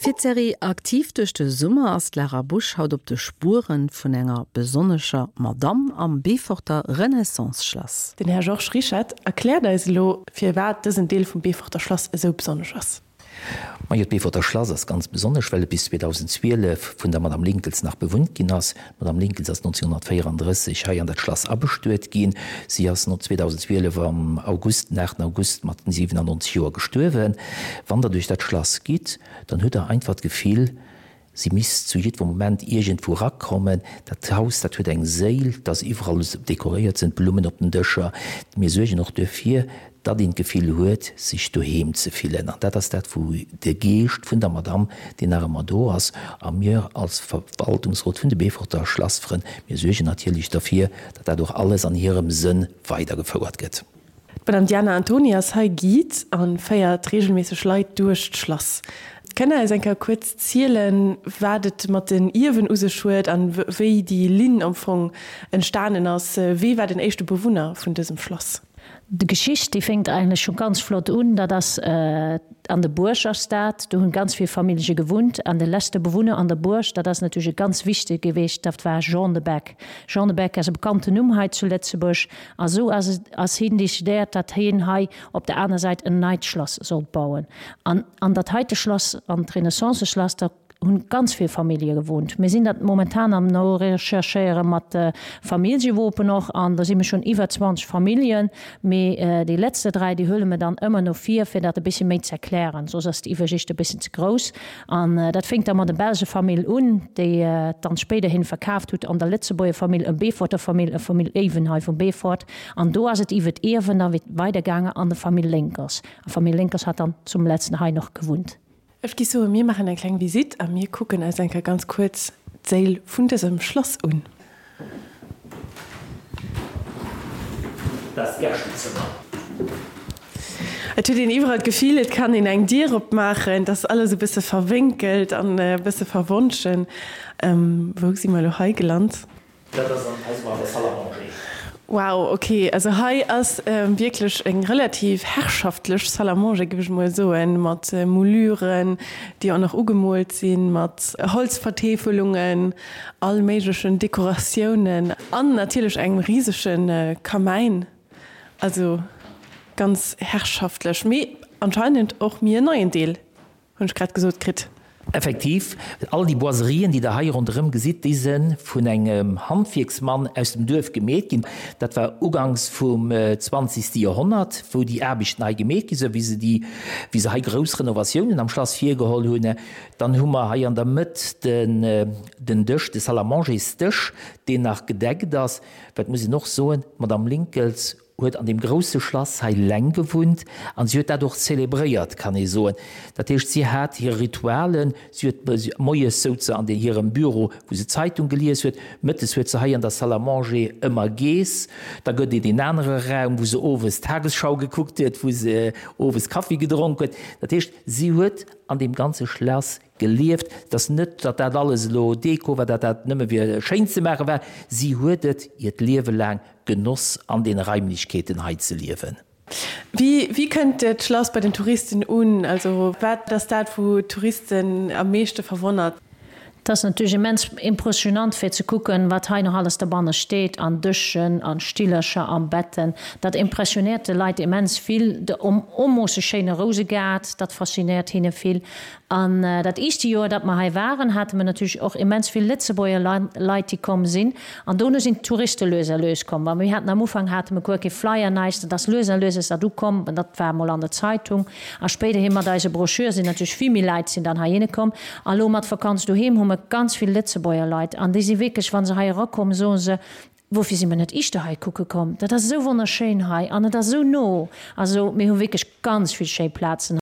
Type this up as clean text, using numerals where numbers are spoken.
Fir d'Serie Aktiv duerch de Summer ass d'Lara Busch haut op de Spueren vun enger besonnescher Madamm am Beeforter Renaissance-Schlass. Den Här Georges Rischette erkläert eis elo, firwat dësen Deel vum Beeforter Schlass esou besonnesch ass. Majo, d'Beeforter Schlass ass ganz besonnesch, well et bis 2012 vun der Madame Linckels nach bewunnt ginn ass. D'Madame Linckels ass 1934 hei an dat Schlass abestuet ginn. Si ass 2012 am August, den 8 August, mat 97 Joer gestuerwen. Wann Der duerch dat Schlass gitt, dann hutt Der einfach d'Gefill, si misst zu jiddwer Moment iergendwou erakommen. Dat Haus, dat huet eng Séil, et ass iwwerall dekoréiert, sinn Blummen op den Dëscher. Mir suergen och duerfir, datt een d'Gefill huet, sech doheem ze fillen. An dat ass dat, wou de Geescht vun der Madamm, deen nach ëmmer do ass, a mir als Verwaltungsrot vun de Beeforter Schlassfrënn, mir suergen natierlech derfir, datt dat och alles an hirem Sënn weidergefouert gëtt. D'Madame Diana Antoni ass hei Guide a féiert reegelméisseg Leit duerch d'Schlass. Kënnt Der eis eng Kéier kuerz zielen, wat et mat den Ierwen u sech huet an wéi déi Linn am Fong entstanen ass? Wee war den éischte Bewunner vun dësem Schlass? D'Geschicht déi fénkt eigentlech scho ganz flott un, dat ass an der Buerg ass dat, do hunn ganz vill Famillje gewunnt an de leschte Bewunner an der Buerg, dat ass natierlech e ganz wichtege geweecht, dat war Jean de Beck. Jean de Beck ass e bekannten Numm hei zu Lëtzebuerg a sou ass et ass hien decidéiert, datt hien hei op der aner Säit en neit Schlass sollt bauen an an dat heite Schlass, an d'Renaissance-Schlass, da hunn ganz vill Famillje gewohnt. Mir sinn dat momentan am norecherchéiere mat de Familljewopen och an do si mir schonn iwwer 20 Familljen. Mee déi letzte 3, déi huele mir dann ëmmer no vir, fir dat e bëssche méi ze erklären, soss ass d'Iwwersicht e bëssen ze grouss. An dat fénkt da mat der belsche Famill un, déi et dann spéiderhin verkaaft hutt an der Lëtzebuerger Famill, e Beeforter Famill, e Famill Even hei vum Beefort. An do ass et iwwer d'Ierwen da weidergaange an de Famill Lénkers. A Famill Lénkers hat dann zum letzten hei noch gewunnt. Ech gi soen, mir maachen eng kleng Visitt a mir kucken eis eng Kéier ganz kuerz d'Séil vun dësem Schlass un. Dat ass d'Gäschtezëmmer. Et huet een iwwerall d'Gefill, et kann een eng Dier opmaachen. Et ass alles e bësse verwénkelt an e bësse verwonschen. Wou si mer elo hei gelant? Dat ass an eisem an der Salle à manger. Wow, ok, also hei ass wierklech eng relativ herrschaftlech Salle à manger, géif ech mol soen, mat Mouluren, déi och nach ugemoolt sinn, mat Holzvertäfelungen, all méiglechen Dekoratiounen an natierlech engem risege Kamäin. Also ganz herrschaftlech, mee anscheinend och méi en neien Deel. Hunn ech grad gesot kritt. Effektiv, all déi Boiserien, déi Der hei ronderëm gesitt, déi se vun engem Handwierksmann aus dem Duerf gemeet ginn. Dat war uganks vum zwanzegste Joerhonnert, wou déi Aarbechten hei gemeet gi sinn, wéi se déi, wéi se hei grouss Renovatiounen am Schlass virgeholl hunn. Dann hu mer hei an der Mëtt den, den Dësch, de Salle-à-manger-s-Dësch, deen nach gedeckt ass. Wat muss een och soen, d'Madame Linckels huet an deem grousse Schlass hei leng gewunnt an si huet dat och zelebréiert, kann ee soen. Dat heescht, si hat hir Ritualen, si huet moies souz se an hirem Büro, wou se d'Zeitung gelies huet, mëttes huet se hei an der Salle à manger ëmmer geess, da gëtt et een anere Raum, wou se owes d'Tagesschau gekuckt huet, wou se owes Kaffi gedronk huet. Dat heescht, si huet an deem ganze Schlass gelieft. Et ass net, datt dat alles elo Deko war, datt dat nëmme fir schéin ze maache war. Si huet et hiert Liewe laang genoss, an deene Raimlechkeeten hei ze liewen. Wéi, wéi kënnt d'Schlass bei den Touristen un? Also wat ass dat, wou d'Touristen am meeschte verwonnert? Et ass natierlech immens impressionant fir ze kucken, wat hei nach alles derbanne steet, an Dëschen, an Stillercher, an Betten. Dat impressionéiert de Leit immens vill. De onmoosse schéine Rousegaart, dat faszinéiert hinne vill. An dat éischte Joer, datt mer hei waren, hate mer natierlech och immens vill Lëtzebuerger Leit, déi komm sinn. An dono sinn d'Touriste lues a lues komm. Well mir haten am Ufank hate mer guer kee Flyer, näischt. Dat ass lues a lues ass dat ukomm. An dat war emol an der Zeitung. A spéiderhi mat eise Broschür sinn natierlech vill méi Leit sinn dann heihinne komm. A lo mat Vakanz doheem hu mer ganz vill Lëtzebuerger Leit. An déi si wierklech, wa se hei erakommen, soe se, Woufir si mer net iischter hei kucke komm? Dat ass esou wonnerschéin hei an et ass esou no. Also mir hu wierklech ganz vill schéi Plazen.